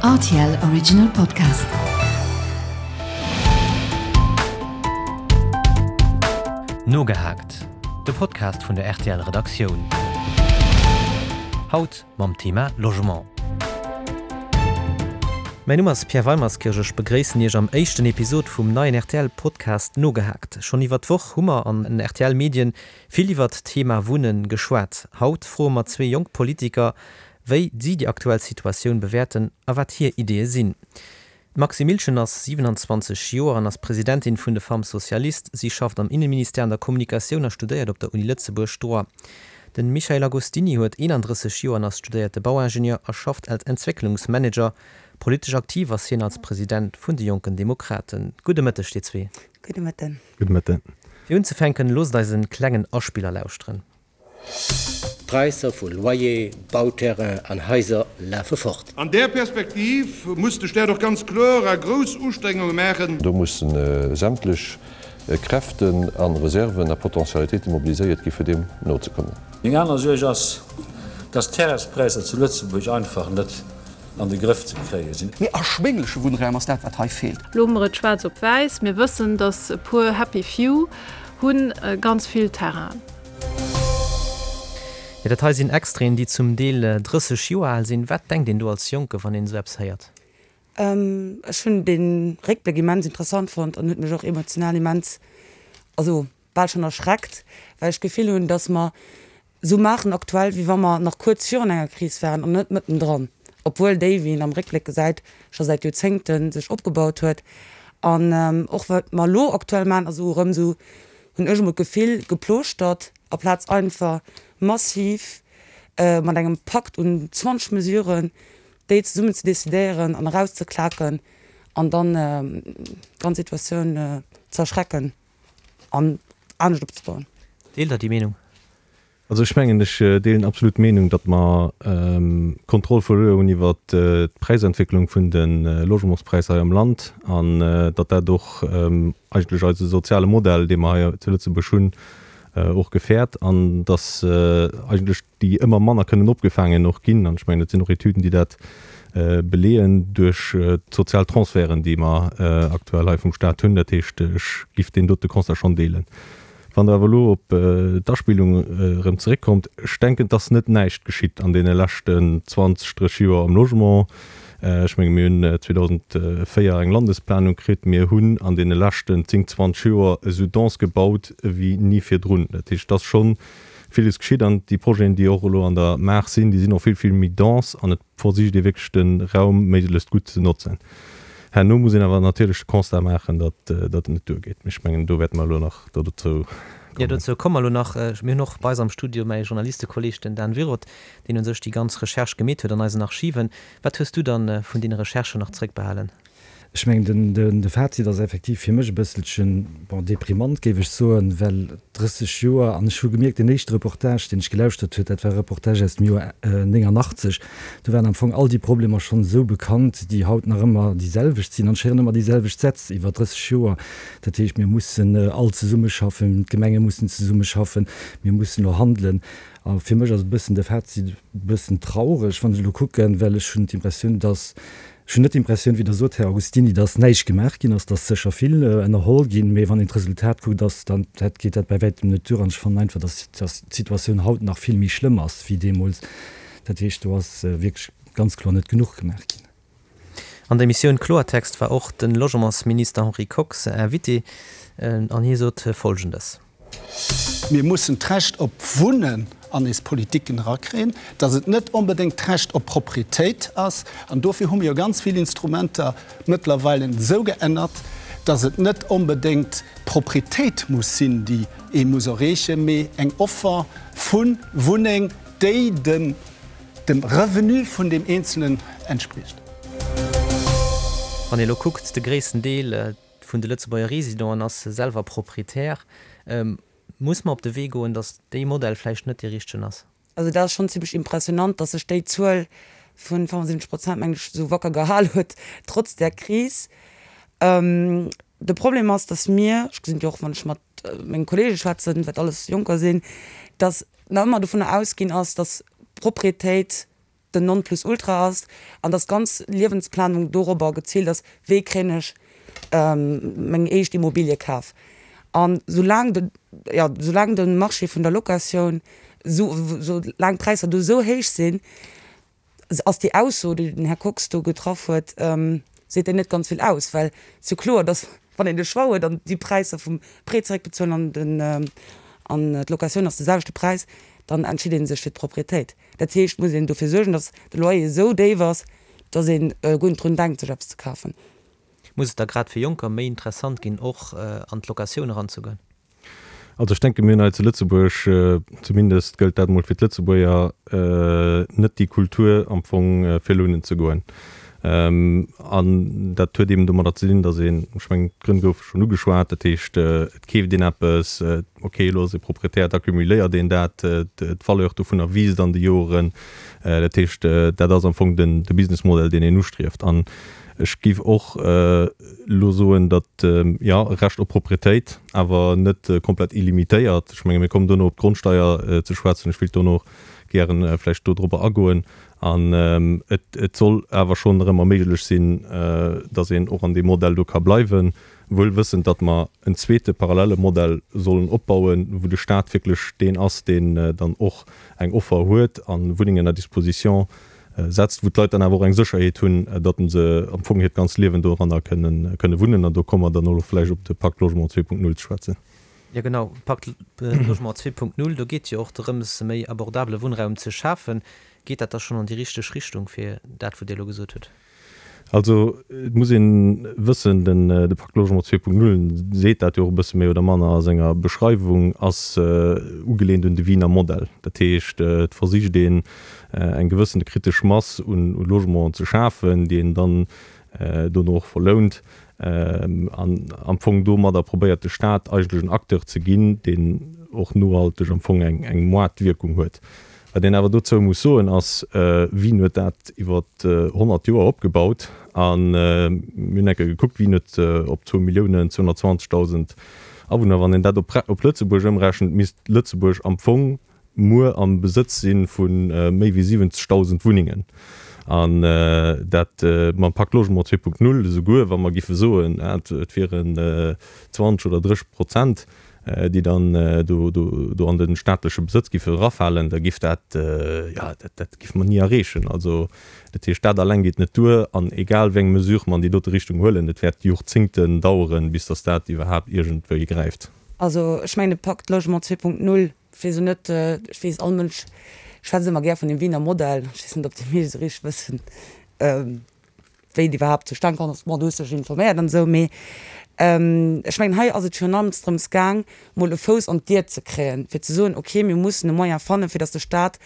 Rtl Original Podcast. Nogehaakt, de Podcast vun der rtl Redaktioun. Haut mam Thema Logement. Mäin Numm ass Pierre Weimerskirch, ech begréissen Iech am éischten Episod vum neien rtl Podcast Nogehaakt. Schonn iwwer d'Woch hu mer an den rtl Medien vill iwwert d'Thema Wunnen geschwat. Haut froe mer zwee jonk Politiker, wéi si déi aktuell Situatioun bewäerten a wat hir Ideeë sinn. D'Maxi Milchen ass 27 Joer an ass Presidentin vun de Femmes Socialistes. Si schafft am Inneministère an der Kommunikatioun a studéiert op der Uni Lëtzebuerg Droit. De Michael Agostini huet 31 Joer an ass studéierte Bauingenieur a schafft als Entwécklungsmanager. Politesch aktiv ass hien als President vun de Jonken Demokraten. Gudde Mëtteg dir zwee. Gudde Mëtten. Gudde Mëtten. Fir unzefänken, loosst eis en klengen Aspiller lauschteren. D'Präisser vu Loyer, Bauterrain an Haiser lafe fort. An där Perspektiv muss de Staat och ganz kloer a grouss Ustrengunge maachen. Do mussen sämtlech Kräften a Reserven a Potentialitéite mobiliséiert gi fir deem nozekommen. Meng aner Suerg ass, dass d'Terrainspräisser zu Lëtzebuerg einfach net an de Grëff ze kréie sinn. Mee erschwéngleche Wunnraum ass dat, wat hei feelt. Lo hu mer et schwaarz op wäiss, Mir wëssen, dass e puer happy few hu ganz vill Terrainen. Jo, dat hei sinn Extraiten, déi zum Deel 30 Joer al sinn. Wat denkt een do als Jonke, wann een esou eppes héiert? Ech hunn dee Réckbléck immens interessant fonnt an huet mech och emotional immens, also bal schonn erschreckt, well ech d'Gefill hunn, datt mer esou maachen aktuell, wéi wa mer nach kuerz virun enger Kris waren an net mëttendran, obwuel déi, wéi een am Réckbléck gesäit, scho säit Joerzéngte sech opgebaut huet. An och wat mer elo aktuell maachen, ass esou erëm esou, hunn ech emol d'Gefill, geplooschtert, aplaz einfach massiv mat engem Pakt un 20 Mesuren déi zesummen ze decidéieren an erauszeklaken an dann d'ganz Situatioun ze erschrecken an anescht opzebauen. Deelt Der déi Meenung? Also ech mengen, ech deelen absolut d'Meenung, datt mer d'Kontroll verluer hunn iwwert d'Präisentwécklung vun de Logementspräisser hei am Land an datt dat och eigentlech eise soziale Modell, dee mer hei zu Lëtzebuerg hunn, och gefäert an datt eigentlech déi ëmmer manner kënnen opgefaangen och ginn, an ech mengen, et sinn och Etüden, déi dat beleeën, duerch d'sozial Transferten, déi mer aktuell hei vum Stat hunn. Dat heescht, ech giff deen dote Constat schonn deelen. Wann Der awer elo op d'Aspillung erëm zeréckkommt, ech denken, et ass net näischt geschitt an deene leschten 20, 30 Joer am Logement. Ech menge mir hunn 2004 eng Landesplanung kritt. Mir hunn an deene leschten 10, 20 Joer esou dense gebaut wéi ni virdrun. Dat heescht, et ass scho villes geschitt an déi Projeten, déi och elo an der Maach sinn, déi sinn och vill, vill méi dense an et versicht ee wierklech de Raum méiglechst gutt ze notzen. Herno muss een awer natierlech de Constat maachen, datt et net duergeet. Mee ech mengen, do wäerte mer elo nach dozou kommen. Jo, dozou komme mer elo nach. Mir hunn och bei eis am Studio mäi Journalistekolleeg, den Dan Wirot, deen u sech déi ganz Recherche gemeet huet an eisen Archiven. Wat hues du dann vun deene Recherchen nach zréckbehalen? Ech mengen, den, de Fazit ass effektiv fir mech e bësselchen, bon, deprimant, géif ech soen, well 30 Joer, an ech hu gemierkt, deen éischte Reportage, deen ech gelauschtert huet, dat war e Reportage aus dem Joer 89, do waren am Fong all déi Problemer schonn esou bekannt, déi haut nach ëmmer déi selwecht sinn. An ech héieren ëmmer déi selwecht Sätz iwwer 30 Joer, dat heescht, mir mussen all zesummeschaffen, d'Gemenge mussen zesummeschaffen, mir mussen elo handelen. A fir mech ass e bëssen de Fazit e bëssen traureg, wann ech elo kucken, well ech hunn d'Impressioun, dass Ech hunn net d'Impressioun, wéi Der sot, Här Agostini, dass näischt gemaach ginn ass. Et ass sécher vill ënnerholl ginn, mee wann een d'Resultat kuckt, ass dann, dat geet dat bäi wäitem net duer. An ech fannen einfach, dass, dass d'Situatioun haut nach vill méi schlëmm ass wéi deemools. Dat heescht, do ass wierklech ganz kloer net genuch gemaach ginn. An der Emissioun Kloertext war och de Logementsminister Henri Kox Invité an hie sot Folgendes. Mir mussen d'Recht op Wunnen an eis Politiken erakréien, dass et net onbedéngt d'Recht op Proprietéit ass. An dofir hu mir jo ganz vill Instrumenter mëttlerweile esou geännert, dass et net onbedéngt d'Proprietéit muss sinn, déi ee muss erreechen, mee eng Offer vu Wunneng, déi dem Revenu vun deem Eenzelen entspricht. Wann ee elo kuckt, de gréissten Deel, vun de Lëtzebuerger Residenten ass selwer Proprietär. Muss mer op de Wee goen, datt dee Modell vläicht net dee richtegen ass? Also dat ass schonn zimmlech impressionant, datt sech déi Zuel vu 75 Prozent, mengen ech, esou wacker gehal huet, trotz där Kris. De Problem ass, datt mir, ech gesinn et jo och, wann ech mat menge Kollege schwätzen, wat alles Jonker sinn, datt nach ëmmer dovunner ausginn ass, datt Proprietéit. den Nonplusultra ass an dass d'ganz Liewensplanung dorobber geziilt ass, wéi kréien ech meng éischt Immobilie kaf. An soulaang de, jo, soulaang de Marché vun der Locatioun, soulaang d'Präisser do esou héich sinn, ass déi Ausso, déi den Här Kox do getraff huet, seet déi net ganz vill aus, well et ass jo kloer, dass wann een de Choix huet an déi Präisser vum Prêt zeréckbezuelen an den, an d'Locatioun ass de selwechte Präis, dann entscheet ee sech fir d'Propriétéit. Dat heescht, et muss een dofir suergen, dass de Loyer esou déif ass, dass ee guer net drun denkt, sech eppes ze kafen. Muss et da grad fir Jonker méi interessant ginn, och an d'Locatioun eranzegoen? Also ech denke mir hunn hei zu Lëtzebuerg, zumindest gëllt dat emol fir d'Lëtzebuerger, net déi Kultur am Fong fir lounen ze goen. An dat huet eben domadder ze dinn, datt een, ech mengen d'Grënn goufe schonn ugeschwat, dat heescht et keeft een eppes, okay elo ass ee Proprietär, da cumuléiert een dat, d'Valeur dovunner wiisst an de Joren. Dat heescht dat ass am Fong den de Businessmodell deen een ustrieft. An ech géif och elo soen, datt, jo, e Recht op Proprietéit, awer net komplett illimitéiert. Ech menge mir kommen dono op d'Grondsteier ze schwätzen. Ech wéilt dono och gären vläicht dodrobber agoen. An et soll awer schonn erëm erméiglech sinn, datt een och an deem Modell do ka bleiwen, wuel wëssend, datt mer en zweete parallele Modell sollen opbauen, wou de Stat wierklech deen ass, deen dann och eng Offer huet a Wunnengen à disposition setzt, wou d'Leit dann awer och eng Sécherheet hunn, datt se am Fong hiert ganzt Liewen doranner kënne wunnen. An do komme mer dann och vläicht op de Pacte Logement 2.0 ze schwätzen. Jo genau, Pacte Logement 2.0, do geet jo och drëms, méi abordabele Wunnraum ze schafen. Geet dat da schonn an déi richteg Richtung, fir dat, wou Dir elo gesot hutt? Also et muss ee wëssen, den de Pacte Logement 2.0 seet dat jo och e bësse méi oder manner a senger Beschreiwung, ass ugelehnt un de Wiener Modell. Dat heescht, et versicht een eng gewëssene kritesch Mass un Logementen ze schafen, déi een dann dono och verlount an am Fong domadder probéiert de Staat eigentlech en Acteur ze ginn, deen och nohalteg am Fong eng Moartwierkung huet. Wat een awer dozou muss soen ass, Wien huet dat iwwer 100 Joer opgebaut? A mir hunn eng Kéier gekuckt, Wien huet op zwou Milliounen 220.000 Awunner, wann een dat op Lëtzebuerg ëmrechent, misst Lëtzebuerg am Fong muer am Besëtz si vu méi wéi 70.000 Wunnengen. An dat mam Pacte Logement 2.0, esouguer wa mer giffe soen, et wieren 20 oder 30 Prozent, déi dann do an de staatleche Besëtz giffe erafalen, da giff dat, jo, dat giffe mer ni erreechen. Also, dat heescht, dat alleng geet net duer. An egal wéi eng Mesure mer an déi dote Richtung huelen, et wäert Jorzéngten daueren, bis datt dat iwwerhaapt iergendwéi gräift. Also, ech mengen, de Pacte Logement 2.0, ech weess elo net, ech weess, all Mënsch schwätzt ëmmer gär vun dem Wiener Modell, ech weess net, ob déi meescht esou richteg wëssen, wéi et iwwerhaapt zustan komm ass, bon, du hues dech informéiert an esou, mee ech mengen, hei ass et virun allem drëms gaang, mol e Fouss an d'Dier ze kréien, fir ze soen, okay, mir mussen e Moyen fannen, fir datt de Stat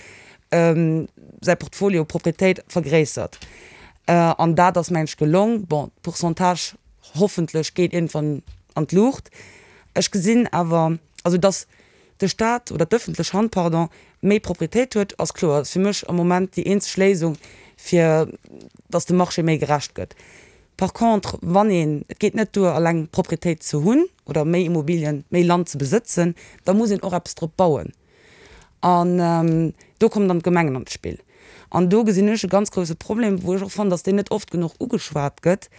säi Portfolio Propriétéit vergréissert. An dat ass, mengen ech, gelong. Bon, d'Pourcentage hoffentlech geet iergendwann an d'Luucht. Ech gesinn awer, also datt de Staat oder d'ëffentlech Hand, pardon, méi Proprietéit huet, ass kloer. Dat ass fir mech am Moment déi eenzeg Léisung, fir datt de Marché méi gerecht gëtt. Par contre, wann een, et geet net duer alleng Proprietéit ze hunn oder méi Immobilien, méi Land ze besëtzen, da muss een och eppes drop bauen. An do kommen dann d'Gemengen an d'Spill. An do gesinn ech e ganz grousse Problem, wou ech och fannen, datt deen net oft genuch ugeschwat gëtt,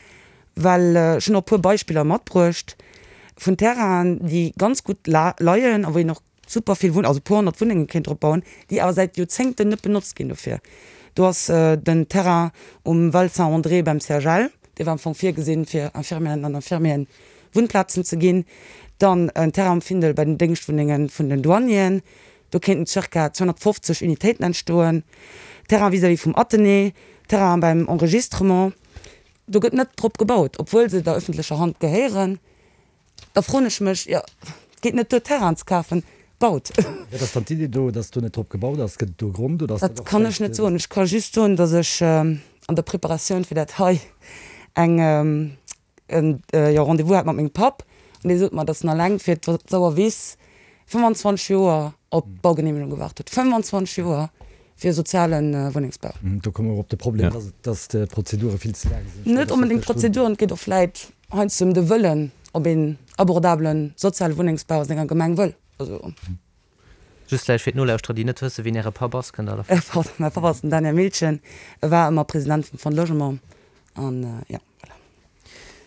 well ech hunn och e puer Beispiller matbruecht vun Terrainen, déi ganz gutt leien a wou een och super vill Wunn, also e puer 100 Wunnenge kéint drop bauen, déi awer säit Joerzéngten net benotzt ginn dofir. Do ass den Terrain um Val Saint-André beim CHL, dee war am Fong virgesinn, fir Infirmièren an Infirmieren Wunnplazen ze ginn. Dann en Terrain um Findel bei den Déngschtwunnenge vun den Douanieren, do kéinten zirka 250 Unitéiten entstoen. Terrain vis-à-vis vum Athenée, Terrain beim Enregistrement, do gëtt net drop gebaut, obwuel se der öffentlecher Hand gehéieren. Da froen ech mech, jo, et geet net duer Terrainen ze kafen, baut! Wat ass dann d'Idee do, datt do net drop gebaut ass? Gëtt et do e Grond oder ass dat och vläicht. Dat kann ech net soen. Ech ka just soen, datt ech an der Preparatioun fir dat hei eng, jo, Rendez-vous hat mat mengem Papp an dee sot mer, datt en alleng fir d'Sauerwiss 25 Joer op d'Baugeneemegung gewaart huet. 25 Joer fir e soziale Wunnengsbau. Do komme mer op de Problem, datt d'Prozedure vill ze laang sinn. Net onbedéngt d'Prozeduren, et geet och vläit heiansdo ëm de Wëllen, ob een abordabele soziale Wunnengsbau a senger Gemeng wëll. Also. Just vläicht fir d'Nolauschterer, déi net wëssen, wien Äre Papp ass, kënnt Der der. Pardon, mäi Papp ass den Daniel Miltgen, e war ëmmer President vum Fonds Logement an jo, voilà.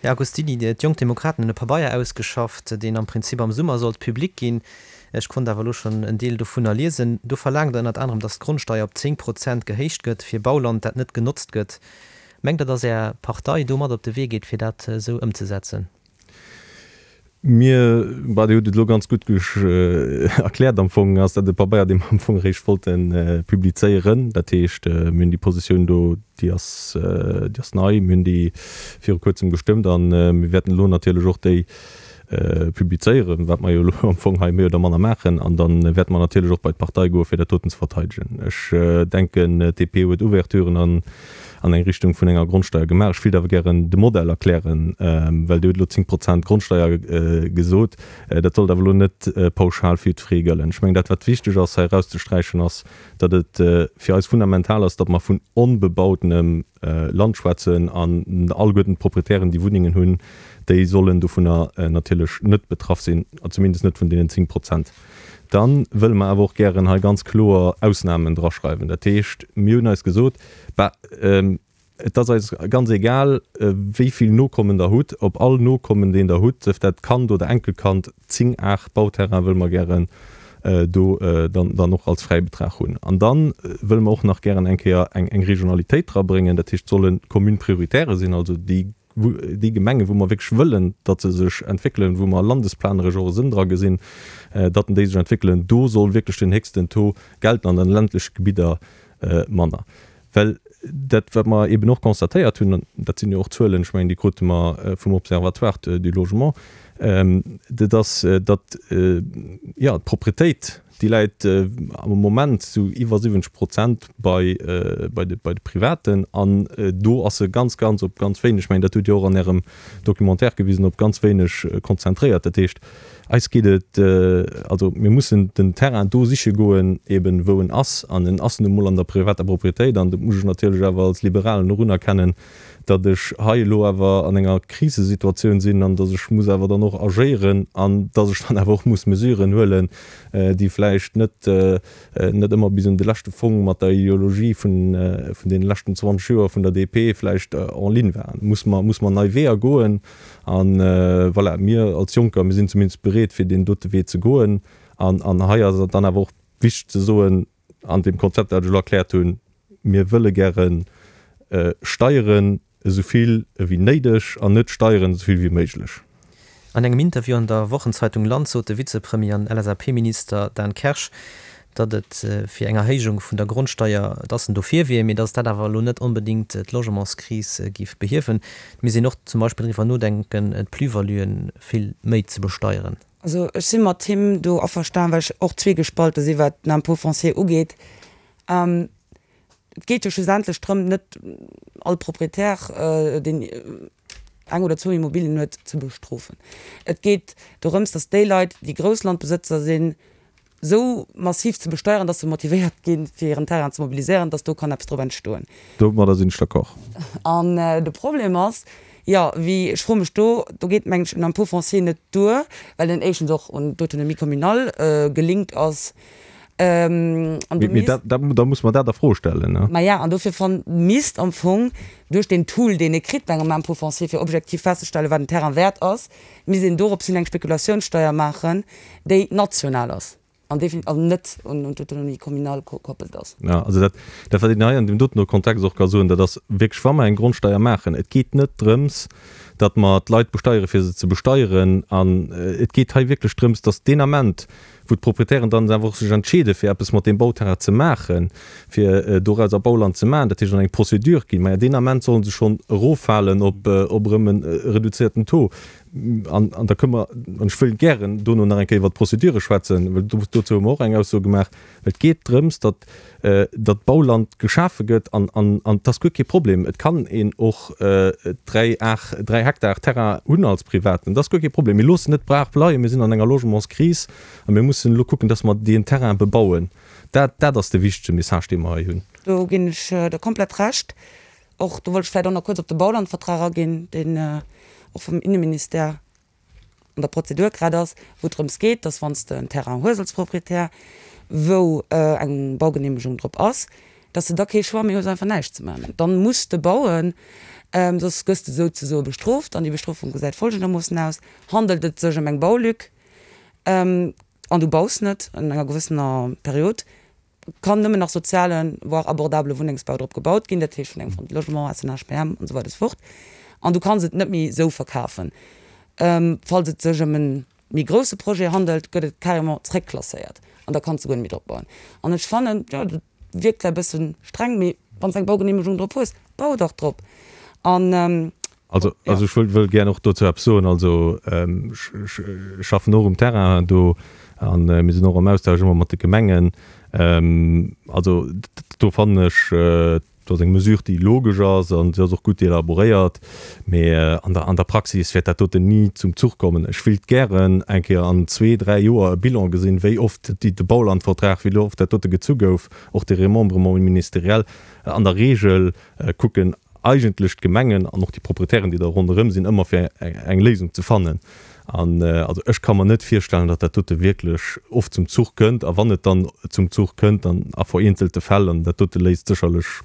Här Agostini, d'Jonk Demokraten hunn e Pabeier ausgeschafft, deen am Prinzip am Summer sollt public ginn. Ech konnt awer elo schonn en Deel dovunner liesen. Do verlaangt Der ënnert anerem, datt d'Grondsteier op 10 Prozent gehéicht gëtt fir Bauland, dat net genotzt gëtt. Mengt Der, datt Är Partei do mat op de Wee geet, fir dat esou ëmzesetzen? Mir, bah, Dir hutt et elo ganz gutt erkläert. Am Fong ass dat e Pabeier, dee mer am Fong eréischt wollte publizéieren. Dat heescht, mir hunn déi Positioun do, déi ass, déi ass nei. Mir hunn déi viru Kuerzem gestëmmt a mir wäerten elo natierlech och déi publizéieren, wat mer jo elo am Fong hei méi oder manner maachen. An da wäerte mer natierlech och bei d'Partei goen, fir dat doten ze verteidegen. Ech denken, d'DP huet Ouverturen an an eng Richtung vun enger Grondsteier gemaach. Ech wéilt awer gären de Modell erklären, well Dir hutt elo 10 Prozent Grondsteier gesot. Dat sollt awer elo net pauschal fir jiddweree gëllen. Ech mengen, dat wat wichteg ass hei erauszesträichen, ass, datt et fir eis fundamental ass, datt mer vun onbebautenem Land schwätzen an alleguerten d'Proprietären, déi Wunnengen hunn, déi sollen dovunner natierlech net betraff sinn, zumindest net vun deenen 10 Prozent. Da wëlle mer awer och gären hei ganz kloer Ausnamen draschreiwen. Dat heescht, mir hunn eis gesot, Bah, et ass eis ganz egal, wéi vill Nokommen Der hutt. Op all Nokommen, deen Der hutt, sief dat Kand oder Enkelkand, 10 Ar Bauterrain wëlle mer gären do dann och als Fräibetrag hunn. An da wëlle mer och nach gären eng Kéier eng Regionalitéit drabréngen. Dat heescht, et solle Communes prioritaires sinn, also déi déi Gemengen, wou mer wierklech wëllen, datt se sech entwéckelen, wou mer landesplaneresch och e Sënn dra gesinn, datt déi sech entwéckelen, do soll wierklech den héchsten Taux gelten, an an de ländleche Gebidder manner. Well dat, wat mer eeben och constatéiert hunn, an dat sinn jo och Zuelen, ech mengen, déi krute mer vum Observatoire du logement, dat ass, datt, jo, d'Propretéit, Déi läit am Moment sou iwwer 70 Prozent bei bei de bei de Privaten an do ass se ganz, ganz op ganz wéineg, ech mengen dat hutt Dir och an Ärem Documentaire gewisen, op ganz wéineg konzentréiert. Dat heescht, eis geet et, also mir mussen den Terrain do siche goen, eben wou en ass an en ass nu mol an der privater Propriétéit an dat muss ech natierlech awer als Liberalen och unerkennen, datt ech hei elo awer an enger Krisesituatioun sinn an datt ech muss awer dann och agéieren an datt ech dann awer och muss Mesuren huelen, déi vläicht net net ëmmer bis un de leschte Fong mat der Ideologie vun vun deene leschten 20 Joer vun der DP vläicht en ligne waren. Muss mer muss mer nei Weeër goen an voilà, mir als Jonker, mir sinn zumindest bereet fir deen dote Wee ze goen an an hei ass et dann awer och wichteg ze soen, An deem Konzept, dat ech elo erkläert hunn, mir wëlle gäre Steieren esou vill ewéi néideg an net Steieren esou vill wéi méiglech. An engem Interview an der Wochenzeitung Land sot de Vizepremier an LSAP-Minister Dan Kersch, datt et fir eng Erhéijung vun der Grondsteier, datt en dofir wier, mee datt dat awer elo net onbedéngt d'Logementskris géif behiewen. Et misst een och zum Beispill driwwer nodenken, d'Plus-valuen vill méi ze besteieren. Also ech si mat him do averstan, well ech och zweegespalte si wat den Impôt foncier ugeet. Et geet jo schlussendlech drëm, net all Proprietär, deen eng oder zwou Immobilien huet, ze bestrofen. Et geet dorëms, datt déi Leit, déi grouss Landbesëtzer sinn, esou massiv ze besteieren, dass se motivéiert ginn, fir hiren Terrain ze mobiliséieren, dass do kann eppes drop entstoen. Domadder sinn ech d'accord. An de Problem ass, jo, wéi, ech froe mech do, do geet, mengen ech, en Impôt foncier net duer, well en éischtens och un d'autonomie communale gelinkt ass. An do misst. Mee da muss mer dat a Fro stellen, ne? Maja, an dofir fann, misst am Fong duerch deen Tool, deen ee kritt bei engem Impôt foncier, fir objektiv festzestellen, wat en Terrain wäert ass, misst een dorops hin eng Spekulatiounssteier maachen, déi national ass an definitiv also net un d'Autonomie communale gekoppelt ass. Jo, also dat, dat wat een hei an deem doten Kontext och ka soen, dat ass wierklech, wa mer eng Grondsteier maachen, et geet net drëms, datt mer d'Leit besteiere fir se ze besteieren an et geet hei wierklech drëms, datt deen Ament, wou d'Proprietären dann awer och sech entscheede fir eppes mat deem Bauterrain ze maachen, fir dorauser Bauland ze maachen, dat heescht an eng Procédure ginn, maja deen Ament solle se schonn eroffalen op erëm e reduzierten Taux. An, an da kënne mer, an ech wëll gären dono nach eng Kéier iwwert d'Procédure schwätzen, well do, dozou hu mer och eng Ausso gemaach. Et geet drëms, datt, datt Bauland geschafe gëtt an, an, an et ass guer kee Problem. Et kann een och 3 Ar, 3 Hektar Terrain hunn als Privaten. Dat ass guer kee Problem. Mir loossen net d'Brach bleien. Mir sinn an enger Logementskris a mir mussen elo kucken, datt mer deen Terrain bebauen. Dat, dat ass de wichtege Message, dee mer hei hunn. Do ginn ech der komplett Recht. Och do wollt ech vläicht och nach kuerz op de Baulandvertrag aginn, deen och vum Inneministère an der Prozedur grad ass, wou et drëms geet, dass wann s de en Terrain hues als Proprietär. wou eng Baugeneemegung drop ass, dass de da kee Choix méi hues einfach näischt ze maachen. Dann muss de bauen, soss gëss de souzesoe bestrooft. An déi Bestrofung gesäit folgendermoossen aus, Handelt et sech ëm eng Baulück an du baus net an enger gewëssener Period, kann nëmmen nach sozialen, voire abordabele Wunnengsbau drop gebaut ginn, dat heescht vun engem Fonds de Logement, SNHBM an esou weider esou fort. An du kanns et net méi esou verkafen. Falls et sech ëm e méi grousse Projet handelt, gëtt et carrément zréckklasséiert an da kanns de guer net méi drop bauen. An ech fannen, jo, dat wierkt vläicht e bësse streng, mee wann s de eng Baugeneemegung drop hues, bau dach drop. An Also, also ech wëll, wëll gär och dozou eppes soen. Also ech, ech schaffen och um Terrain do a mir sinn och am Austausch ëmmer mat de Gemengen. Also do fannen ech, do ass eng Mesure, déi logesch ass an se ass och gutt elaboréiert, mee an der, an der Praxis wäert dat doten ni zum Zuch kommen. Ech wéilt gären eng Kéier an zwee, dräi Joer e Bilan gesinn, wéi oft déi, de Baulandvertrag, wéi oft dat dote gezu gouf, och de Remembrement ministériel. An der Regel kucken eigentlech d'Gemengen an och déi Proprietären, déi da ronderëm sinn, ëmmer fir eng Léisung ze fannen. An also ech ka mer net virstellen, datt dat dote wierklech oft zum Zuch kënnt. A wann et dann zum Zuch kënnt, dann a vereenzelte Fäll. An dat dote léist sécherlech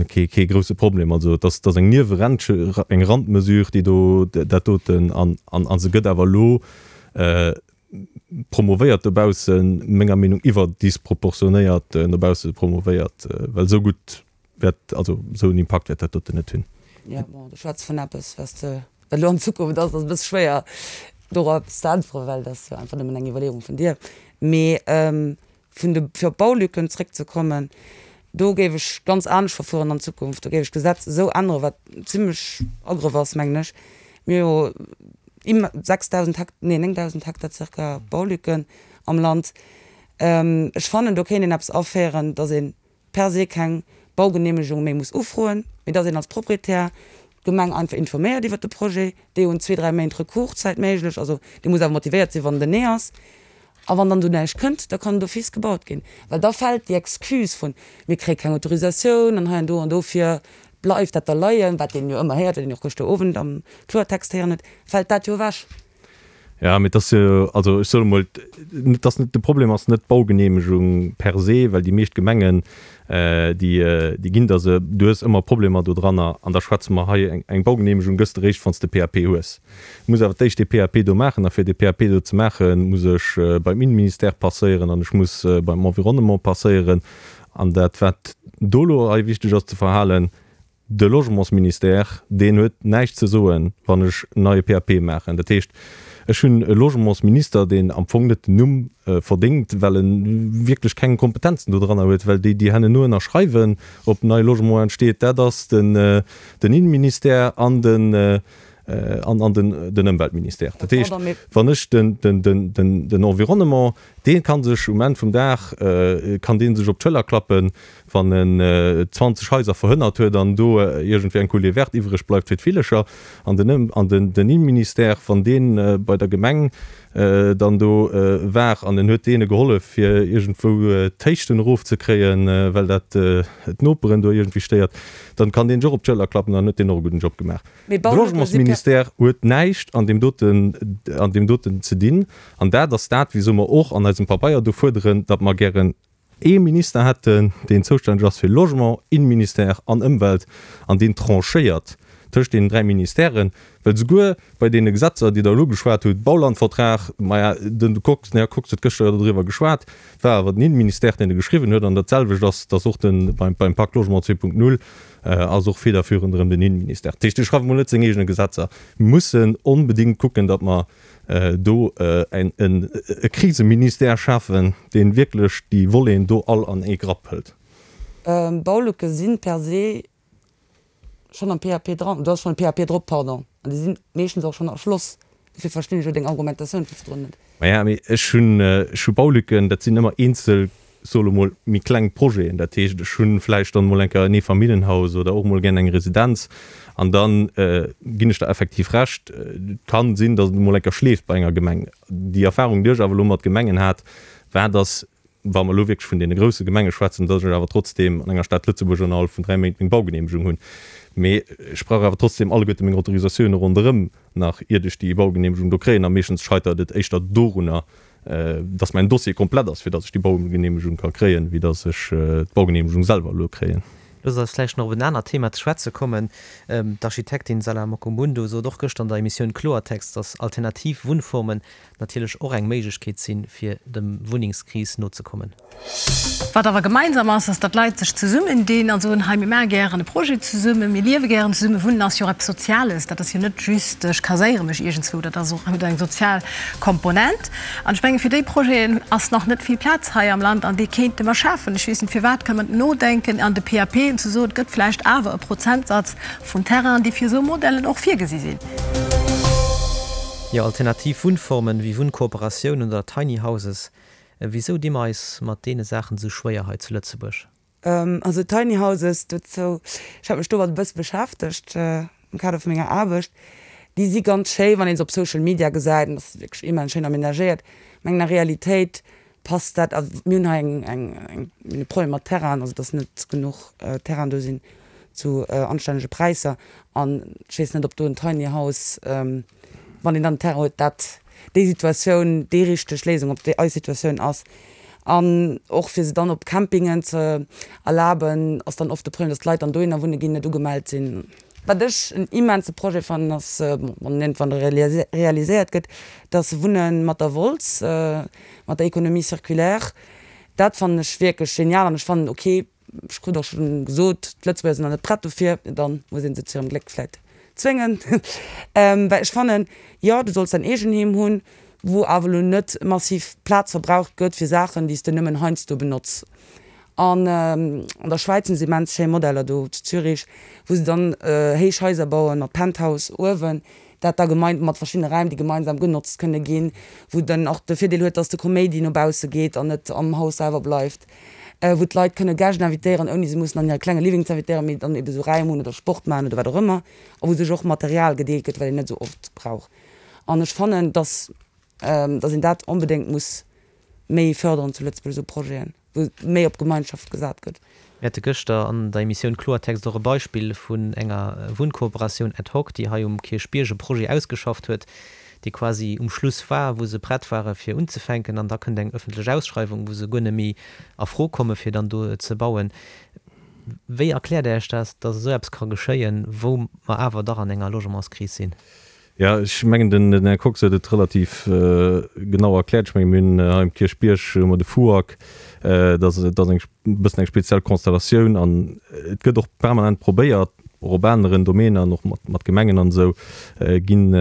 kee, kee grouse Problem. Also et ass, et ass eng Niewerent, eng Randmesure, déi do dat doten an, an, a se gëtt awer elo promovéiert dobaussen, menger Meenung iwwerdisproportionéiert no bausse promovéiert, well esou gutt wäert, also esou en Impakt wäert dat doten net hunn. Jo, bon, du schwätz vun eppes, wat s de, wat elo an Zukunft ass, ass e bësse schwéier dorop eppes ze äntweren, well dat ass jo einfach nëmmen eng Iwwerleeung vun dir. Mee vun de, fir op d'Baulücken zréckzekommen, do géif ech ganz anescht verfueren an Zukunft. Do géif ech d'Gesetz esou änneren, wat zimlech Agrëff ass, mengen ech. Mir hu jo imm 6.000 Hekt, nee 9.000 Hektar zirka Baulücken am Land. Ech fannen, do kéint een eppes aféieren, dass ee per se keng Baugeneemegung méi muss ufroen, mee dass een als Proprietär d'Gemeng einfach informéiert iwwert de Projet. Déi hunn zwee, dräi Méint Recourszäit méiglech, also dee muss awer motivéiert sinn, wann den Nee ass. A wann dann do näischt kënnt, da kann d'office gebaut ginn, well da fält déi Excuse vun, mir kréie keng Autorisatioun an hei an do an dofir bleift dat da leien, wat een jo ëmmer héiert, wat een och gëschter Owend am Kloertext héieren huet, fält dat jo ewech. Jo, mee et ass jo, also ech soen emol, et ass net, de Problem ass net d'Baugeneemegung per se, well déi meescht Gemengen, déi, déi ginn der se. Du hues ëmmer Problemer dodranner an da schwätze mer hei, eng, eng Baugeneemegung gëss de réischt, wann s de PAP hues. Du muss awer d'éischt dee PAP do maachen a fir dee PAP do ze maachen, muss ech beim Innenministère passéieren an ech muss beim Environnement passéieren. An dat, wat do elo hei wichteg ass ze verhalen, De Logementsministère, deen huet näischt ze soen, wann ech en neie PAP maachen. Dat heescht, ech hunn e Logementsminister, deen am Fong net den Numm verdéngt, well e wierklech keng Kompetenzen dodranner huet, well déi, déi hanneno ënnerschreiwen, ob en neie Logement entsteet, dat ass den Innenministère an den Ëmweltministère. Dat heescht, wann ech den Environnement, dee ka sech um Enn vum Dag, kann dee sech op d'Schëller klappen, wann en 20 Haiser verhënnert huet an do iergendwéi eng Coulée verte iwwreg bleift fir d'Villecher, an den an den den Innenministère, wann dee bei der Gemeng dann do war an en huet deene gehollef fir iergendwou d'Héichten erofzekréien, well dat d'Noperen do iergendwéi stéiert, dann kann deen sech och op d'Schëller klappen an huet deen och e gudden Job gemaach. Mee De Baulücke si per. Logementsministère huet näischt an deem doten an deem doten ze dinn an dat ass dat, wisou mer och an eisem Pabeier do fuerderen, datt mer gären ee Minister hätten, deen zoustänneg ass fir Logement, Innenministère an Ëmwelt an deen tranchéiert tëscht deenen 3 Ministèren, well souguer bei deene Gesetzer, déi Der elo geschwat hutt, Baulandvertrag, maja, den Kox, den Här Kox huet gëschter jo doriwwer geschwat, war awer den Innenministère, deen e geschriwwen huet an dat selwecht ass, dass och de beim beim Pacte Logement 2.0 ass och federführend erëm den Innenministère. Dat heescht, dee schreift emol net seng eegene Gesetzer. Mir mussen onbedéngt kucken, datt mer do e Kriseministère schafen, dee wierklech déi Voleten do all an ee Grapp hëlt. Baulücke si per se schonn am PAP dran, do ass schonn e PAP drop, pardon, an déi si meeschtens och schonn erschloss. Dofir verstinn ech elo deng Argumentatioun vu virdrun net. Maja, mee ech hunn, ech hu Baulücken, dat sinn ëmmer eenzel, soe lo mol, méi kleng Projeten. Dat heescht, ech hu vläicht dann emol eng Kéier en Eefamilljenhaus oder och emol gär eng Residenz. An da ginn ech der effektiv Recht, et kann sinn, datt et emol eng Kéier schleeft bei enger Gemeng. Déi Erfahrung, déi ech awer elo mat Gemengen hat, war, datt, wa mer elo wierklech vun deene grousse Gemenge schwätzen, datt ech awer trotzdeem an enger Stad Lëtzebuerg ënnerhalb vun 3 Méint meng Baugeneemegung hunn. Mee ech brauch awer trotzdeem alleguerte meng Autorisatioune ronderëm nach, iert ech déi Baugeneemegung do kréien. A meeschtens scheitert et éischter dorunner. datt mäin Dossier komplett ass, fir datt ech déi Baugeneemegung ka kréien, wéi datt ech d'Baugeneemegung selwer elo kréien. Loosst eis vläicht nach op en anert Thema ze schwätze kommen. D'Architektin Salah Mokomundo sot och gëschter an der Emissioun Kloertext, datt alternativ Wunnformen natierlech och eng Méiglechkeet sinn, fir dem Wunnengskris nozekommen. Wat awer gemeinsam ass, ass, datt Leit sech zesummendinn a soen, hei mir maache gären e Projet zesummen, mir liewe gären zesummen. Wunnen ass jo och eppes Soziales, dat ass jo net just, ech kaséiere mech iergendzwou, dat ass och, huet eng sozial Komponent. An ech menge fir déi Projeten ass nach net vill Plaz hei am Land an déi kéinte mer schafen. Ech weess net firwat, kënne mer nodenken an de PAPen ze soen, et gëtt vläicht awer e Prozentsatz vun Terrainen, déi fir esou Modellen och virgesi sinn. Jo, alternativ Wunnformen wéi Wunnkooperatiounen oder Tiny Houses, Wisou di mer eis mat deene Saachen esou schwéier hei zu Lëtzebuerg? Also Tiny Houses, dozou, ech hat mech domat e bësse beschäftegt am Kader vu menger Aarbecht, déi si ganz schéi wann ee se op Social Media gesäit an ass wierklech immens schéin amenagéiert. Mä an der Realitéit passt dat, also mir hunn hei eng eng eng mir hunn e Problem mat Terrainen, also datt net genuch Terrainen do sinn zu anstännege Präisser an ech weess net ob do en Tiny House, wann een dann den Terrain huet, dat déi Situatioun déi richteg Léisung op déi eis Situatioun ass. An och fir se dann op Campingen ze erlaben, ass dann oft de Problem, datt d'Leit dann dohinner wunne ginn, net ugemellt sinn. Wat ech en immense Projet fannen ass, bon, wann en iergendwann realiséiert gëtt, dass Wunne mat der Wolz, mat der Économie circulaire, dat fannen ech wierklech genial an ech fannen ok, Ech krut och schonn gesot, d'Lëtzebuerger sinn nach net prett dofir. Dann muss ee se zu hirem Gléck vläit zwéngen. Well ech fannen, jo, du solls däin Eegenheem hunn, wou awer elo net massiv Plaz verbraucht gëtt fir Saachen, déi s de nëmmen heiansdo benotz. An an der Schwäiz hunn se immens schéi Modeller do zu Zürich, wou se dann héich Haiser bauen mat Penthouse uewen, dat da gemein mat verschiddene Räim, déi gemeinsam genotzt kënne ginn, wou dann och de Virdeel huet, dass de Koméidi no bausse geet an net am Haus selwer bleift, wou d'Leit kënne Gäscht invitéieren, ouni se mussen an hire klenge Living ze invitéieren, mee dann ebe sou Räim hunn oder Sport maachen oder wat och ëmmer, a wou sech och Material gedeelt gëtt, wat een net sou oft brauch. An ech fannen, dass, dass een dat onbedéngt muss méi fërderen zu Lëtzebuerg, esou Projeten. wou méi op Gemeinschaft gesat gëtt. Mir hate gëschter an der Emissioun Kloertext och e Beispill vun enger Wunnkooperatioun ad hoc, déi hei um Kierchbierg e Projet ausgeschafft huet, dee quasi um Schluss war, wou se prett ware fir unzefänken an da kënnt eng ëffentlech Ausschreiwung, wou se guer net méi a Fro komme fir dann do ze bauen. Wéi erkläert Der Iech dat, datt esou eppes ka geschéien, wou mer awer dach an enger Logementskris sinn? Jo, ech mengen, den Här Kox huet et relativ genau erkläert. Ech menge mir hunn hei um Kierchbierg hu mer de FUAG, dat ass dat ass eng e bëssen eng speziell Konstellatioun an et gëtt och permanent probéiert, och op aneren Domäner an och mat mat Gemengen an esou ginn,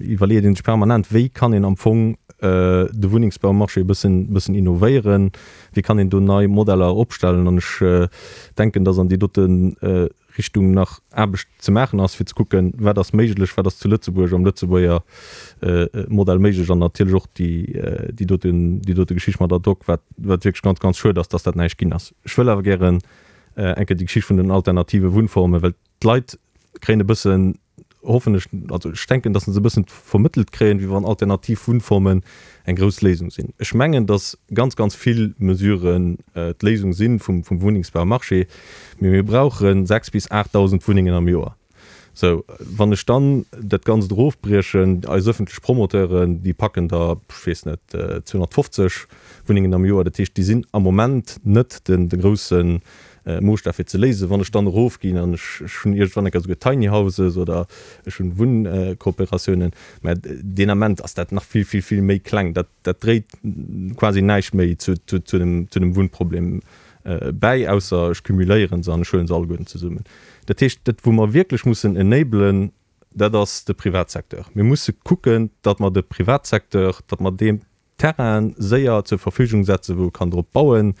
iwwerleet ee sech permanent, wéi kann een am Fong de Wunnengsbaumarché e bëssen bëssen innovéieren, wéi kann een do nei Modeller opstellen. An ech denken, datt an déi dote Richtung nach Aarbecht ze maachen ass, fir ze kucken, wat ass méiglech, wat ass zu Lëtzebuerg am Lëtzebuerger Modell méiglech an natierlech och déi, déi doten, déi dote Geschicht mat ad hoc, wat, wat wierklech ganz, ganz schued ass, dass dat näischt ginn ass. Ech wëll awer gären eng Kéier déi Geschicht vun den alternative Wunnformen, well d'Leit kréien e bëssen, hoffen ech, also ech denken, dass se e bëssen vermëttelt kréien, wéi wann alternativ Wunnformen eng grouss Léisung sinn. Ech mengen, dass ganz, ganz vill Mesuren d'Léisung si vum Wunnengsbaumarché, mee mir brauche 6 bis 8.000 Wunnengen am Joer. Sou, wann ech dann dat Ganzt erofbriechen, eis ëffentlech Promoteuren, déi packen der, ech weess net, 250 Wunnengen am Joer, dat heescht, déi sinn am Moment net de grousse Moosstaf fir ze léisen. Wann ech dann erofginn an ech hunn iergendwann eng Kéier esouguer Tiny Houses oder ech hunn Wunnkooperatiounen, mä deen Ament ass dat nach vill, vill, vill méi kleng. Dat, dat dréit quasi näischt méi zu, zu, zu dem, zu dem Wunnproblem bäi, ausser ech cumuléiere se an ech huele se alleguerten zesummen. Dat heescht, dat wou mer wierklech mussen enablen, dat ass de Privatsecteur. Mir musse kucken, datt mer de Privatsecteur, datt mer deem Terrainen séier zur Verfügung setzen, wou e kann drop bauen.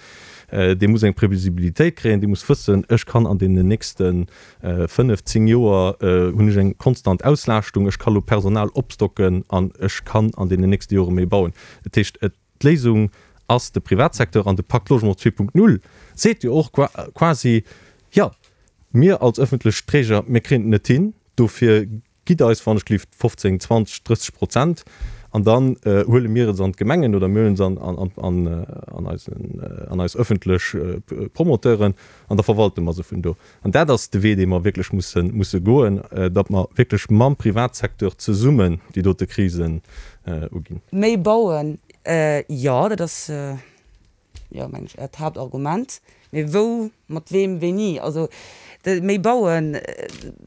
Dee muss eng Previsibilitéit kréien, dee muss wëssen, ech kann an deenen nächste 5, 10 Joer hunn ech eng konstant Auslaaschtung, ech ka lo Personal opstocken an ech kann an deenen nächste Jore méi bauen. Dat heescht, d'Léisung ass de Privatsecteur an de Pacte Logement 2.0 seet jo och quasi, jo, mir als ëffentlech Träger, mir kréien et net hin, dofir Gitt eis wann ech gelift 15, 20, 30 Prozent an dann huele mir et an d'Gemengen oder mir huelen se an an eis ëffentlech Promoteuren an da verwalte mer se vun do. An dat ass de Wee, dee mer wierklech musse musse goen, datt mer wierklech mam Privatsecteur zesummen déi dote Krisen uginn. Méi bauen. Jo, dat ass, jo, mengen ech, Äert Haaptargument. Mee wou, mat weem, wéini? Also méi bauen,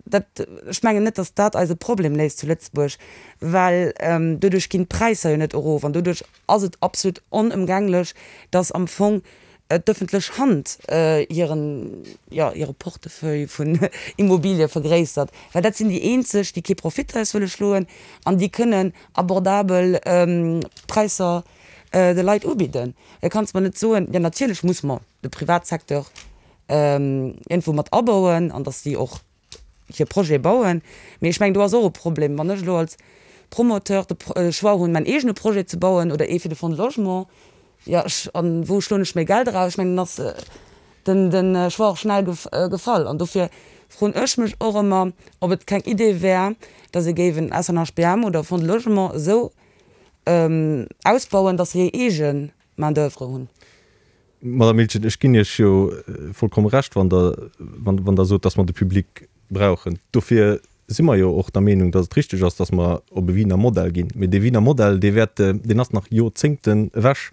dat, ech mengen net, datt dat eise Problem léist zu Lëtzebuerg, well doduerch ginn d'Präisser jo net erof an doduerch ass et absolut onëmgänglech, datt am Fong d'ëffentlech Hand hiren, jo, hire Portefeuille vun Immobilie vergréissert, well dat sinn déi eenzeg, déi kee Profit draus wëlle schloen an déi kënnen abordabel Präisser de Leit ubidden. Da kanns mer net soen, jo natierlech muss mer de Privatsecteur iergendwou mat abauen an datt déi och hir Projete bauen. Mee ech mengen, do ass och e Problem, wann ech elo als Promoteur de Choix hunn, mäin eegene Projet ze bauen oder ee fir de Fonds de Logement, jo, ech, a wou schloen ech méi Geld eraus? Ech mengen, dann ass den, de Choix och schnell gefall. An dofir froen ech mech och ëmmer, ob et keng Idee wär, datt ee géif en SNHBM oder e Fonds de Logement esou ausbauen, datt se hir eege Main d'oeuvre hunn. Madame Miltgen, ech ginn Iech jo vollkomme Recht, wann Der, wann Der sot, dass mer de Public brauchen. Dofir si mer jo och der Meenung, dass et richtig ass, dass mer op e Wiener Modell ginn. Mee dee Wiener Modell, dee wäert, deen ass nach Jorzéngten ewech.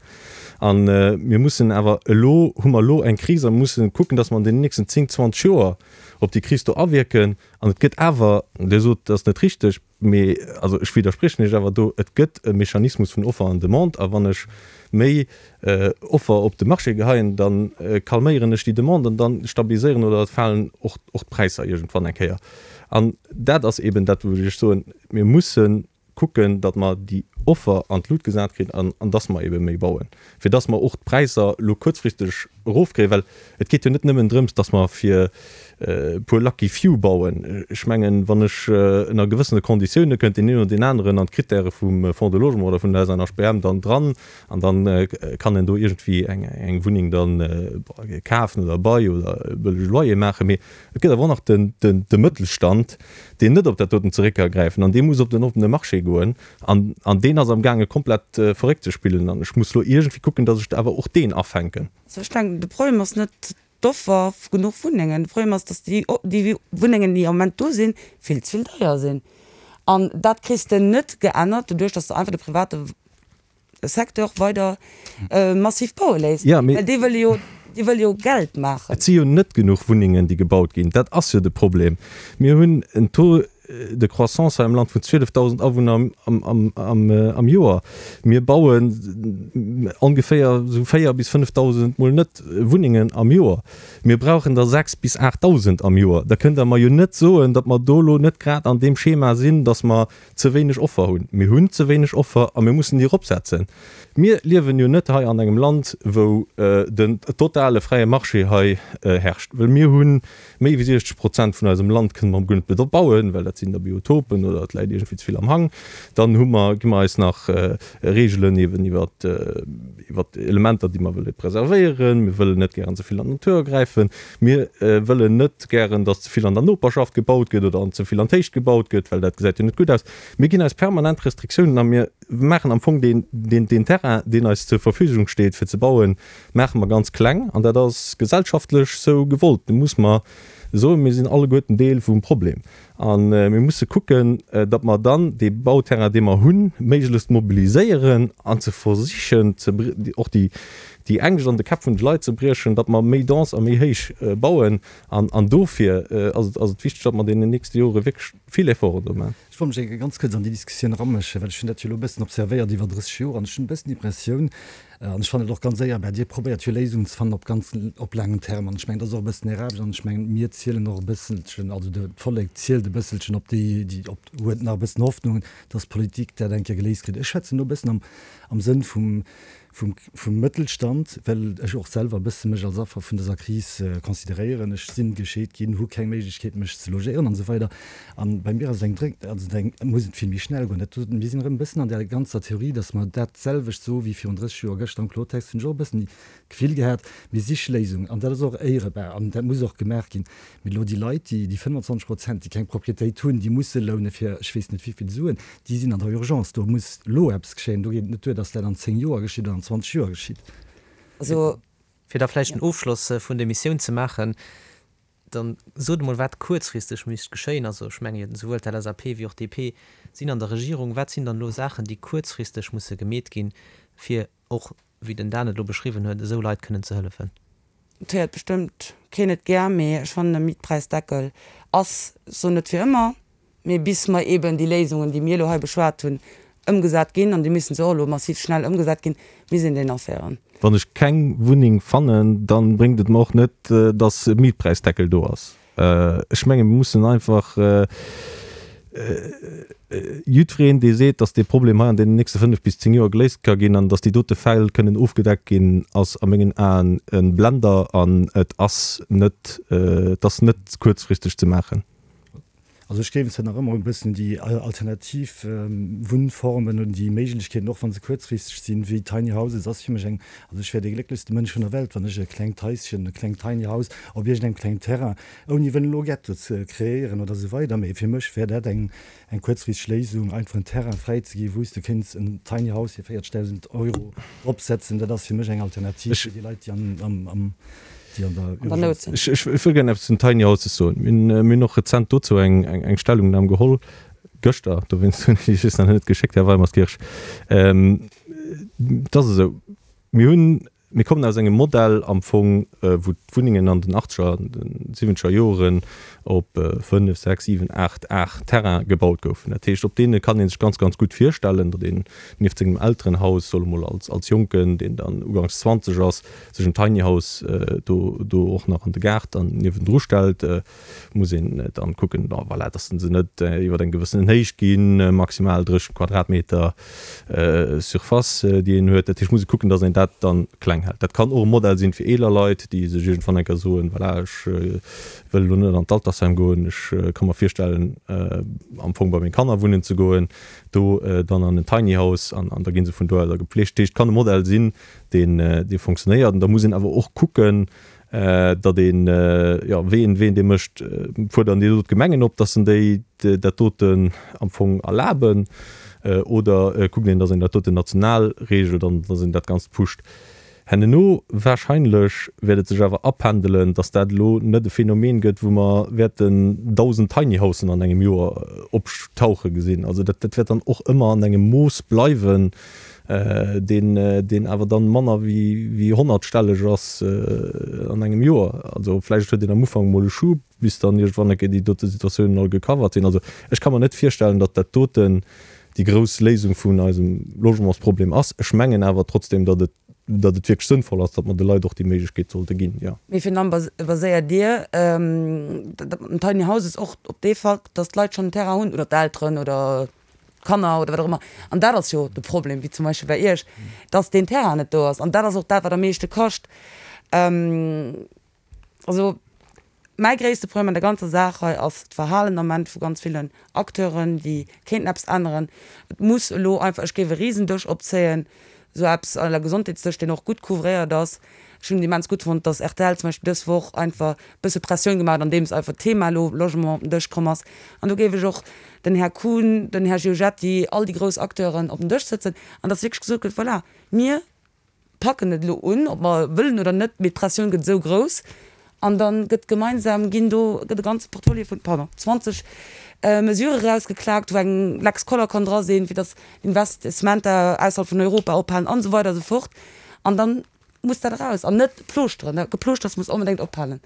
A mir mussen awer elo, hu mer elo eng Kris a mussen kucken, dass mer an deenen nächsten 10, 20 Joer op déi Kris do awierken. An et gëtt awer, Dir sot, dat ass net richtig, Mee, also ech widderspriechen Iech awer do, et gëtt e Mechanismus vun Offer an Demande, a wann ech méi Offer op de Marché geheien, da calméieren ech déi Demande an da stabiliséieren oder falen och d'Präisser iergendwann eng Kéier. An dat ass eeben dat, wou ech Iech soen, mir musse kucken, datt mer déi Offer an d'Lut gesat kritt an datt mer eebe méi bauen, fir datt mer och d'Präisser elo kuerzfristeg erofkréien, well et geet jo net nëmmen drëms, datt mer fir e puer lucky few bauen. Ech mengen, wann ech ënner gewëssene Konditioune kënnt deen een oder deen aneren an d'Krittäre vum Fonds de Logement oder vun der SNHBM dann dran an dann kann en do iergendwéi eng Wunneng dann kafen oder Bail oder e bëllege Loyer maachen. Mee et gëtt awer och nach de Mëttelstand, deen net op dat doten zeréck ka gräifen an dee muss op den oppene Marché goen an deen ass amgaange komplett verréckt ze spillen an ech muss elo iergendwéi kucken, datt ech awer och deen afänken. Also ech denken, de Problem ass net d'Offer vu genuch Wunnengen. De Problem ass, datt déi, déi Wunnengen, déi am Moment do sinn, vill ze vill deier sinn. An dat kriss de net geännert doduerch, datt s de einfach de private Secteur weider massiv baue léisst. Ja, mee. Well déi wëlle jo, déi wëlle jo Geld maachen. Et si jo net genuch Wunnengen, déi gebaut ginn. Dat ass jo de Problem. Mir hunn en Taux de croissance hei am Land vun 12.000 Awunner am Joer. Mir bauen ongeféier esou 4 bis 5.000, mol net, Wunnengen am Joer. Mir brauchen der 6 bis 8.000 am Joer. Da kënnt Der mer jo net soen, datt mer do elo net grad an deem Schema sinn, datt mer ze wéineg Offer hunn. Mir hunn ze wéineg Offer a mir mussen déi eropsetzen. Mir liewen jo net hei an engem Land, wou den totale fräie Marché hei herrscht, well mir hu Méi wéi 60 Prozent vun eisem Land kënne mer guer net bebauen, well dat sinn da Biotopen oder et läit iergendwéi ze vill am Hang. Dann hu mer, gi mer eis nach Reegelen eeben iwwer iwwer Elementer, déi mer wëlle preservéieren. Mir wëllen net gären ze vill an d'Natur agräifen. Mir wëllen net gären, datt ze vill an der Noperschaft gebaut gëtt oder an ze vill an d'Héicht gebaut gëtt, well dat gesäit jo net gutt aus. Mir ginn eis permanent Restriktiounen a mir maachen am Fong deen, deen, deen Terrain, deen eis zur Verfügung steet fir ze bauen, maache mer ganz kleng an dat ass gesellschaftlech sou gewollt. Do muss mer soen, mir sinn alleguerten Deel vum Problem a mir musse kucken, datt mer dann dee Bauterrain, dee mer hunn, méiglechst mobiliséieren an ze versichen, och déi Ängscht an de Käpp vun de Leit ze briechen, datt mer méi dense a méi héich bauen. An dofir ass et wichteg, datt mer an deenen nächste Jore wierklech vill Efforten do maachen. Ech wollt mech ganz kuerz an déi Diskussioun eramëschen, well ech hunn dat jo elo e bëssen observéiert iwwer 30 Joer an ech hunn e bëssen d'Impressioun, an ech fannen et och ganz éierbar, Dir probéiert jo Léisungen ze fannen op ganz, op laangem Terme an ech mengen, dat ass och e bëssen Är Aarbecht an ech mengen, mir zielen och e bësselchen, also de d'Vollek zielt e bësselchen op déi, déi op, huet nach e bëssen Hoffnung, dass d'Politik dat eng Kéier geléist kritt. Ech schwätzen elo e bëssen am, am Sënn vum, vum, vum Mëttelstand, well ech och selwer e bësse mech als Affer vun dëser Kris consideréieren. Ech sinn gescheet ginn, hu keng Méiglechkeet mech ze logéieren an esou weider. An bei mir ass et eng dréng, also eng, muss et vill méi schnell goen. Dat, mir sinn erëm e bëssen an där ganzer Theorie, datt mer dat selwecht soe wéi virun 30 Joer. Gëschter am Kloertext hunn ech och e bëssen d'Gefill gehat, mir siche Léisungen an dat ass och éierebar an dat muss och gemaach ginn. Mee elo déi Leit, déi, déi 25 Prozent, déi keng Propriétéit hunn, déi musse loune fir ech weess net wéivill Suen, Déi sinn an der Urgence. Do muss elo eppes geschéien. Do geet et net duer, datt dat an 10 Joer geschitt oder an 20 Joer geschitt. Also. Fir da vläicht den Ofschloss vun der Emissioun ze maachen. Dann sot emol, wat kuerzfristeg misst geschéien. Also ech menge souwuel d'LSAP wéi och d'DP sinn an der Regierung. Wat sinn dann elo Saachen, déi kuerzfristeg musse gemeet ginn, fir och, wéi den Dan et elo beschriwwen huet, esou Leit kënnen ze hëllefen? Et héiert bestëmmt keen et gär, mee ech fannen e Mietpreisdeckel ass, ech soen net fir ëmmer, mee bis mer eeben déi Léisungen, déi mir elo hei beschwat hunn, ëmgesat ginn, an déi missen se och elo massiv schnell ëmgesat ginn, misst een deen aféieren. Wann ech keng Wunneng fannen, da bréngt et mer och net, datt e Mietpreisdeckel do ass. Ech menge mir mussen einfach jiddwereen, dee seet, datt dee Problem hei an deenen nächste 5 bis 10 Joer geléist ka ginn an datt déi dote Fäll kënnen ofgedeckt ginn, ass a mengen Aen e Blender an et ass net, et ass net kuerzfristeg ze maachen. Also ech géif zwar nach ëmmer e bëssen déi alternativ Wunnformen oder déi Méiglechkeeten, och wa se kuerzfristeg sinn, wéi Tiny Houses ass fir mech eng, also ech wär dee glécklechste Mënsch vun der Welt, wann ech e klengt Haischen, e klengt Tiny House op iergendengem klengen Terrain, ouni wëllen elo Ghetto ze kreéieren oder esou weider, mee fir mech wär dat eng eng kuerzfristeg Léisung, einfach en Terrain fräi ze ginn, wou s de kéints en Tiny House fir 40.000 Euro dropsetzen. Dat ass fir mech eng Alternativ fir déi Leit, déi am. déi an der Nout sinn. Ech wëll gären eppes zu den Tiny Houses soen. Mir hunn och rezent dozou eng Stellungnam geholl, gëschter, dowéinst hunn ech déi just nach net geschéckt, Här Weimerskirch. Et ass esou, mir hunn, mir kommen aus engem Modell am Fong, wou d'Wunnengen an den achtzeger an den siwwenzeger Joren op 5, 6, 7, 8 Ar Terrain gebaut goufen. Dat heescht, op deene kann ee sech ganz, ganz gutt virstellen, datt een nieft sengem Elterenhaus, solle mol als Jonken, deen dann uganks 20 ass, sech en Tiny House do do och nach an de Gaart dann niewendru stellt, muss een dann kucken, bon voilà, dass se net iwwer eng gewëssenen Héicht ginn, maximal 30 Quadratmeter Surface, déi een huet. Dat heescht, muss ee kucken, dass een dat dann kleng hält. Dat kann och e Modell sinn fir eeler Leit, déi sech iergendwann eng Kéier soen, voilà, ech wëll elo net an d'Altersheim goen, ech ka mer virstellen, am Fong bei meng Kanner wunnen ze goen, do dann an en Tiny House an da gi se vun do aus gepflegt. Dat heescht, et kann e Modell sinn, deen dee fonctionnéiert. An da muss een awer och kucken, datt een, jo, wéi een, wéi een dee mécht, fuerderen déi do d'Gemengen op, datt se déi dat doten am Fong erlaben, oder kuckt een, datt een dat doten national regelt an datt een dat Ganzt pusht. Henneno wahrscheinlech wäert et sech awer apendelen, datt dat elo net e Phänomen gëtt, wou mer wäerten 1.000 Tiny Housen an engem Joer optauche gesinn. Also dat dat wäert dann och ëmmer an engem Mooss bleiwen, deen deen awer dann manner wéi honnertstelleg ass an engem Joer. Also vläicht huet een am Ufank emol e Schub, bis dann iergendwann eng Kéier déi dote Situatiounen all gecovert sinn. Also ech ka mer net virstellen, datt dat doten déi grouss Léisung vun eisem Logementsproblem ass. Ech mengen awer trotzdem, datt et datt et wierklech sënnvoll ass, datt mer de Leit och déi Méiglechkeet sollte ginn, jo. Wéi vill baséiert Dir dat mat den Tiny Houses och op dee Fakt, datt d'Leit schonn en Terrain hunn oder d'Elteren oder d'Kanner oder wat och ëmmer? An dat ass jo de Problem, wéi zum Beispill bei Iech, datt deen Terrain net do ass. An dat ass och dat, wat am meeschte kascht. Also mäi gréisste Problem an der ganzer Saach hei ass d'Verhalen am Ament vu ganz villen Acteuren, déi kéinten eppes änneren. Et muss elo einfach, ech géif e Risendësch opzéien, esou eppes à la Gesondheetsdësch, deen och gutt couvréiert ass. Ech hunn et immens gutt fonnt, dass rtl zum Beispill dës Woch einfach e bësse Pressioun gemaach huet, andeems einfach d'Thema elo Logement op den Dësch komm ass. An do géif ech och den Här Kuhn, den Här Giorgetti, all déi grouss Acteuren op den Dësch sëtzen an dass wierklech gesot gëtt, voilà, mir packen et elo un, ob mer wëllen oder net, mee d'Pressioun gëtt esou grouss an da gëtt gemeinsam, ginn do, gëtt e ganze Portfolio vun, pardon, 20 Mesurë erausgeklaakt, wou eng Lex Koller kann dra sinn, fir datt Investissementer ausserhalb vun Europa ophalen an esou weider a sou fort. An da muss dat eraus an net plooschteren. Dat Geplooschters muss onbedéngt ophalen.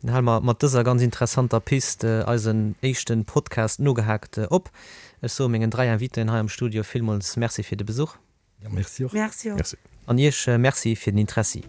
Dann hale mer mat dëser ganz interessanter Pist eisen éischten Podcast Nogehaakt op. Ech soe mengen 3 Invitéen hei am Studio villmools Merci fir de Besuch. Ja, merci och. Merci och. An Iech Merci fir den Interessi.